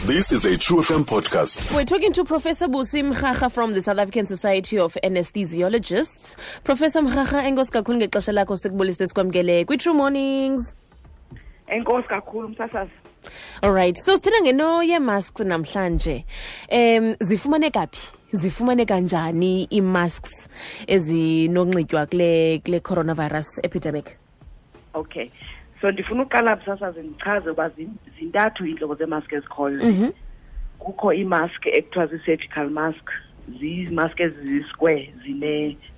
This is a True FM podcast. We're talking to Professor Busi Mhaga from the South African Society of Anesthesiologists. Professor Mhaga, enkosi kakhulu ngexesha lakho, sikubulise, sikwamkele kwi-True Mornings. Enkosi kakhulu, msasazi. All right. So sithetha ngento yee-masks namhlanje. Zifumaneka phi? Zifumaneka njani ii-masks ezinonxitywa kule coronavirus epidemic? Okay. So ndifuna uqala, msasazi, ndichaze uba zintathu iintlobo zeemask ezikhoyo. Kukho iimask ekuthiwa zii-surgical mask, ziimask ezizisquare,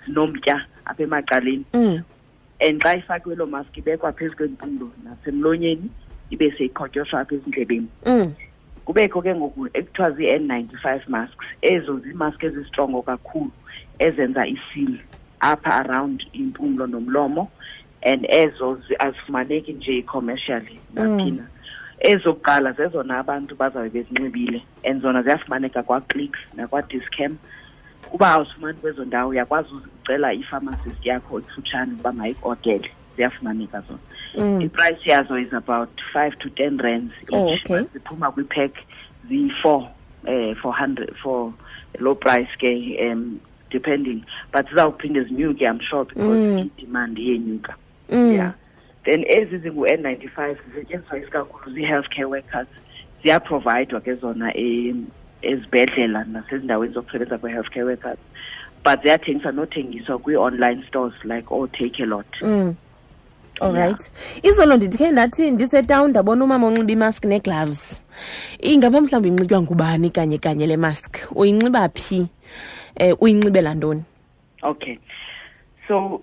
zinomtya apha emacaleni. And xa ifakiwe loo mask, ibekwa phezu kwempumlo nasemlonyeni, ibe seyiqhotyosha apha ezindlebeni. Kubekho ke ngoku ekuthiwa zii-N95 masks. Ezo ziimask ezistrongo kakhulu, ezenza iseal apha around impumlo nomlomo, and ezo azifumaneki nje commercially naphina. Ezokuqala zezona abantu bazawube bezinxibile, and zona ziyafumaneka kwaClicks nakwaDischem. Uba awuzifumani kwezo ndawo, uyakwazi ucela ipharmacist yakho ekufutshane ukuba mayiku-ordele. Ziyafumaneka zona. Iprice yazo is about 5 to 10 rands each. Ziphuma kwipack ziyi-four, 400 for low price ke, depending, but zizawuphinde zinyuke, I'm sure, because i-demand iyenyuka. Yeah, then ezi zingu-N95 zisetyenziswa isikakhulu zii-healthcare workers. Ziyaprovayidwa ke zona ezibhedlela nasezindaweni zokusebenza kwe-healthcare workers, but ziyathengiswa nothengiswa kwii-online stores like ooTakealot. All right. Izolo ndithe ndathi ndisetown, ndabona umama onxiba imask nee-gloves. Ingaba mhlawumbi inxitywa ngubani kanye kanye le mask? Uyinxiba phi? Uyinxibela ntoni? Okay, so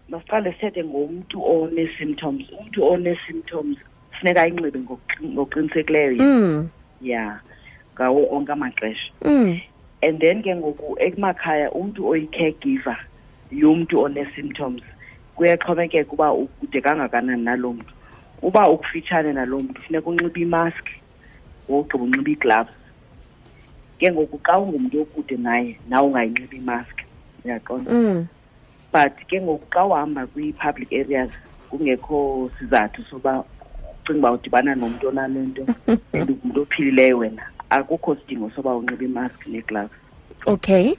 masiqale sithethe ngomntu one-symptoms. Umntu one-symptoms funeka ayinxibe ngokuqinisekileyo yena. Yeah, ngawo onke amaxesha. And then ke ngoku emakhaya, umntu oyi-caregiver yomntu one-symptoms, kuyaxhomekeka uba ukude kangakanani naloo mntu. Uba ukufitshane naloo mntu, funeka unxibe imask, wogqiba unxibe ii-gloves. Ke ngoku xa ungumntu okude naye, nawe ungayinxibi imask, uyaqonda? But ke ngoku xa uhamba kwii-public areas kungekho sizathu soba ucinga uba udibana nomntu onale nto and ungumntu ophilileyo wena, akukho sidingo soba unxibe imask nee-gloves. Okay.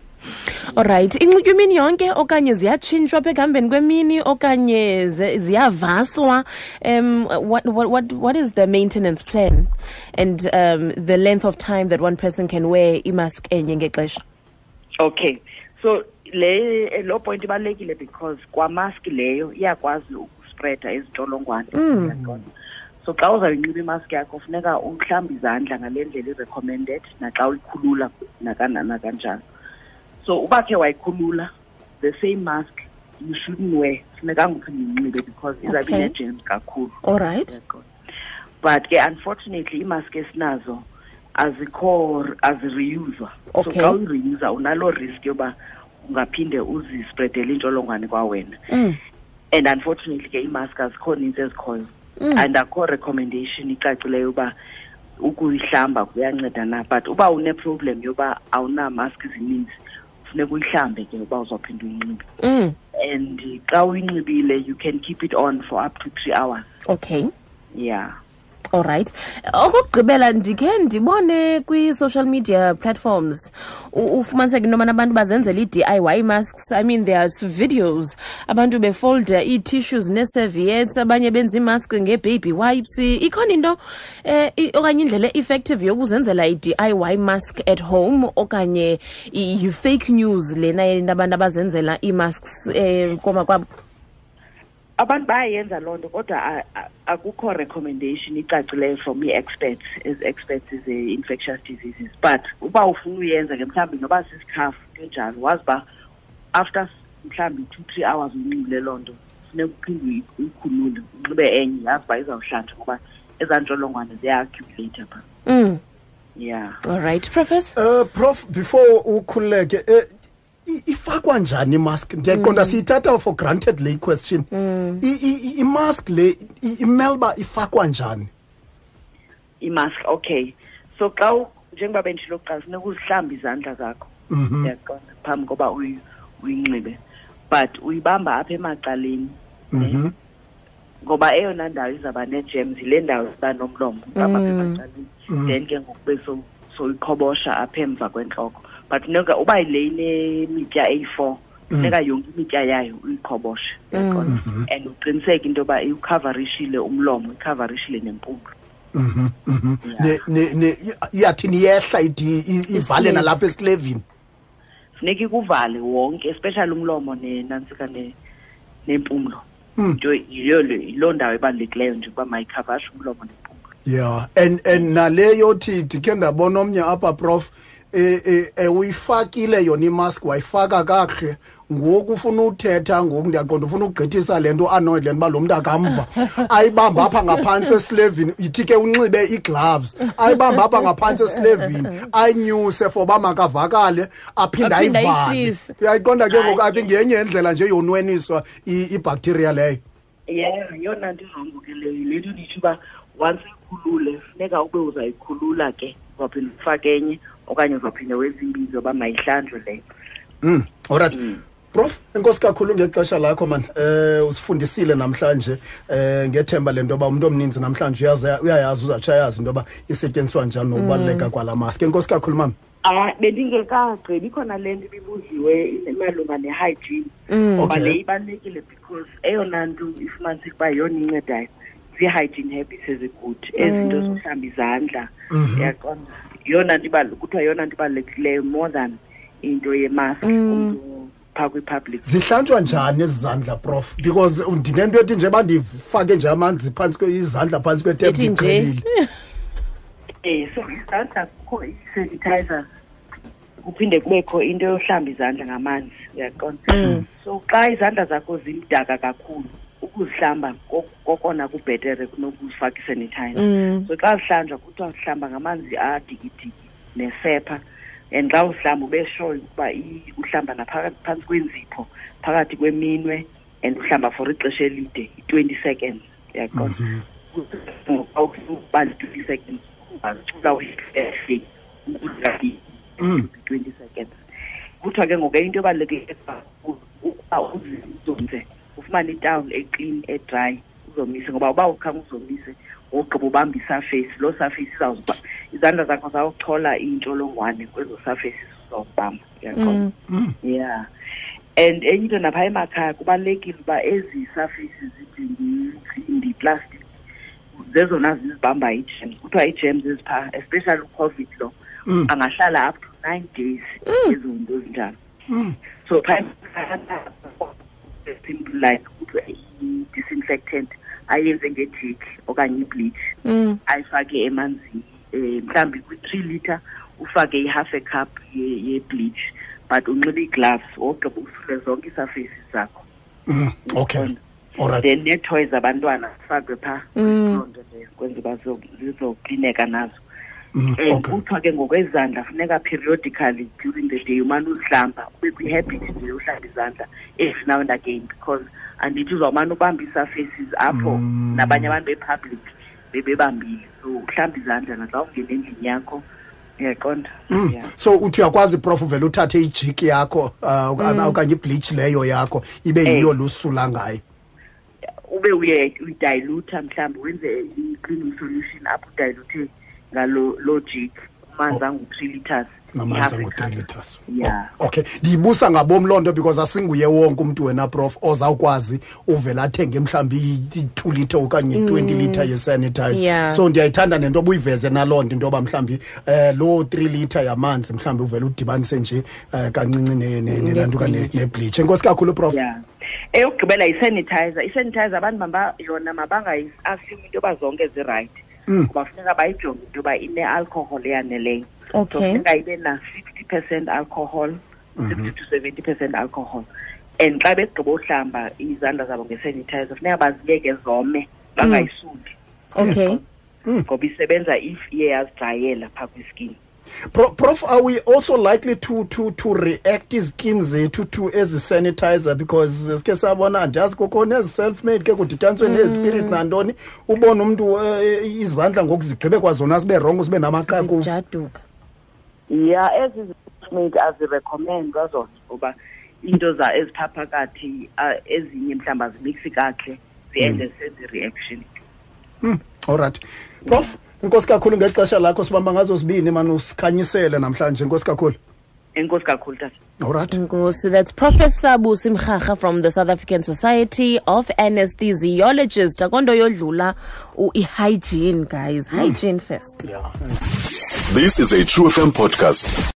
Alright, inxitywa imini yonke okanye ziyatshintshwa apha ekuhambeni kwemini okanye ziyavaswa? What is the maintenance plan and the length of time that one person can wear imask enye ngexesha? Okay, so le lo point ibalulekile because kwamask leyo iyakwazi ukuspreada izintsholongwane. Uyaqonda? So xa uzawuyinxiba imask yakho, funeka uhlambe izandla ngale ndlela i-recommended, naxa uyikhulula nakanjalo. So uba khe wayikhulula, the same mask you shouldn't wear, funekanga uphinde uyinxibe because izawube ine-germs kakhulu. All right. Uyaqonda? But ke unfortunately iimask esinazo azikho, azireuswa. So xa uyireusa, unaloo risk yoba ungaphinde uzispreadele intsholongwane kwawena. And unfortunately ke iimask azikho nintsi ezikhoyo, and akho recommendation icacileyo uba ukuyihlamba kuyanceda na. But uba une-problem yoba awunamask zininzi, funeka uyihlambe ke uba uzawuphinda uyinxibe. And xa uyinxibile, you can keep it on for up to 3 hours. Yeah. Alright. Okokugqibela, ndikhe ndibone kwi-social media platforms ufumaniseke into yobana abantu bazenzela ii-DIY masks. I mean, there's videos abantu befolda ii-tissues nee-serviettes, abanye benza iimask ngee-baby wipes. Ikhona into okanye indlela e-effective yokuzenzela i-DIY mask at home, okanye yi-fake news lena yento abantu abazenzela ii-masks komakwabo? Abantu bayayenza loo nto, kodwa akukho recommendation icacileyo from ii-experts, as experts ze-infectious diseases. But uba ufuna uyenza ke, mhlawumbi noba sisikhafu, into enjalo, wazi uba after mhlawumbi 2, 3 hours uyinxibile loo nto, funeka uphinde uyikhulule, unxibe enye, yazi uba izawuhlanjwa, ngoba ezaa ntsholongwane ziya-accumulate phaa. Yeah. All right, Professor. Prof, before ukhululeke, ifakwa njani imask? Ndiyaqonda siyithatha for granted le question. Imask le imele uba ifakwa njani? Imask, okay. So xa njengoba benditshilo kuqala, funeka uzihlambe izandla zakho, uyaqonda, phambi koba uyinxibe. But uyibamba apha emacaleni. Ngoba eyona ndawo izawuba nee-germs yile ndawo iba nomlomo apha emacaleni. Then ke ngoku bese soyiqhobosha apha emva kwentloko. But funeka uba le inemitya eyi-4, funeka yonke imitya yayo uyiqhoboshe. And uqiniseke into yoba iwukhavarishile umlomo, ikhavarishile nempumlo. Ne iyathi niyehla ivale nalapha esilevini. Funeka ikuvale wonke, especially umlomo nenantsika nempumlo. Yiloo ndawo ebalulekileyo nje ukuba mayikhavashe umlomo nempumlo. Yeah, and nale yothi ndikhe ndabona omnye apha, Prof, uyifakile yona imask, wayifaka kakuhle. Ngoku ufuna uthetha ngoku, ndiyaqonda ufuna ukugqithisa le nto, annoyed le nto uba lo mntu akamva. Ayibamba apha ngaphantsi esilevini, ithi ke unxibe ii-gloves, ayibamba apha ngaphantsi esilevini, ayinyuse for uba makavakale, aphinde Aphinde ayivale. ayihlise. Uyayiqonda ke ngoku, I think yenye indlela nje yonweniswa ibacteria leyo. Yeah, yeyona nto irongo ke leyo. Le nto nditsho uba once uyikhulule, funeka ube uzayikhulula ke, uzawuphinda ufake enye okanye uzawuphinda wenze imbizo uba mayihlanjwe leyo. All right. Prof, enkosi kakhulu ngexesha lakho man. Usifundisile namhlanje, ngethemba lento yoba umuntu omninzi namhlanje uyayazi, uzatsho ayazi into yoba isetyenziswa njani nokubaluleka kwala mask. Enkosi kakhulu mama. Bendingekagqibi, ikhona le nto ibibuziwe malunga ne-hygiene. Ngoba le ibalulekile because eyona nto ifumaniseka uba yeyona incedayo zii-hygiene habits ezigud, ezinto zokuhlamba izandla. Uyaqonda? Yeyona nto kuthiwa yeyona nto ibalulekileyo more than into yemask umntu phaa kwi-public. Zihlanjwa njani ezi zandla, Prof? Because ndinento ethi nje bandifake nje amanzi phantsi izandla phantsi kwetep Ithi nje. ndiqhelile. So izandla kukho i-sanitizer, kuphinde kubekho into yohlamba izandla ngamanzi, uyaqonda? So xa izandla zakho zimdaka kakhulu, ukuzihlamba kokona kubhetere kunokuzifaka i-sanitizer. So xa zihlanjwa kuthiwa zihlamba ngamanzi adikidiki nesepha, and xa uzihlamba ube sure ukuba uhlamba phantsi kwenzipho, phakathi kweminwe, and uhlamba for ixesha elide, i-20 seconds, uyaqonda? Xa uba li-20 seconds, ungazicula uyihle, 20 seconds. Kuthiwa ke ngoku into ebalulekileyo kakhulu ukuba uzomise, ufumane itawuli eclean, edry, uzomise, ngoba uba ukhange uzomise, wogqiba ubamba isurface, loo surface izandla zakho zawuchola iintsholongwane kwezo surfaces uzawubamba, uyaqonda? Yeah. And enye into napha emakhaya kubalulekile uba ezi surfaces zinjengentsimbi, plastic, zezona zizibamba ii-germs. Kuthiwa ii-germs eziphaa, especially uCOVID lo, angahlala up to 9 days ezo nto zinjalo. So phaa simple like kuthiwa i-disinfectant ayenze ngejik okanye ibleach, ayifake emanzini, mhlawumbi kwi-3 liter ufake i-half a cup ye-bleach, but unxibe ii-gloves wogqiba usule zonke ii-surfaces zakho. Okay. Uyabona? All right. Then nee-toys zabantwana zifakwe phaa. Loo nto leyo kwenza uba zizoklineka nazo. And kuthiwa ke ngokwezandla funeka periodically during the day umane uzihlamba, ube kwi-habit nje yohlamba izandla every now and again, because andithi uzawumane ubamba ii-surfaces apho nabanye abantu be-public bebebambile. So uhlamba izandla naxa ungena endlini yakho, uyaqonda? Yeah. So uthi uyakwazi, Prof, uvele uthathe ijiki yakho, okanye ibleach leyo yakho ibe yiyo lusula ngayo. Ube uye uyidilute, mhlawumbi wenze i-cleaning solution apho udilute ngalo loo jik, amanzi angu-3 liters. Ngamanzi Half a angu-3 cup. liters. Yeah. Oh, okay. Ndiyibusa ngabom loo nto because asinguye wonke umntu wena, Prof, ozawukwazi uvela athenge mhlawumbi i-2 liter okanye i-20 liter ye-sanitizer. So ndiyayithanda nento obuyiveze naloo nto, into yoba mhlawumbi, loo 3 liter yamanzi mhlawumbi uvele udibanise nje, kancinci nelantuka nebleach. Enkosi kakhulu, Prof. Yeah. Eyokugqibela yi-sanitizer. I-sanitizer abantu yona mabangayi-assume into yoba zonke zi-right. Ngoba funeka bayijonge into yoba ine-alcohol eyaneleyo. So funeka ibe na 60% alcohol, 60 to 70% alcohol. And xa begqiba uhlamba izandla zabo nge-sanitizer, funeka baziyeke zome, bangayisuli. Ngoba isebenza if iye yazidrayela phaa kwiskin. Prof, are we also likely to react izkin zethu to ezi sanitizer? Because sike sabona, andiyazi kukho nezi self-made ke kudityaniswe nezispirit nantoni, ubone umntu izandla ngoku zigqibe kwazona zibe wrong, zibe namaqhakuva. Zijaduka. Yeah, ezi self-made azirecommendwa zona ngoba into ezipha phakathi, ezinye mhlawumbi azimixi kakuhle, Ziende senze i-reaction. Alright, Prof, inkosi kakhulu ngexesha lakho. Sibamba ngazo zibini mani, usikhanyisele namhlanje. Inkosi kakhulu. Enkosi kakhulu, tata. Alright. Nkosi, that's Professor Busi Mrharha from the South African Society of Anesthesiologists. Akonto yodlula i-hygiene, guys. Hygiene first. This is a True FM podcast.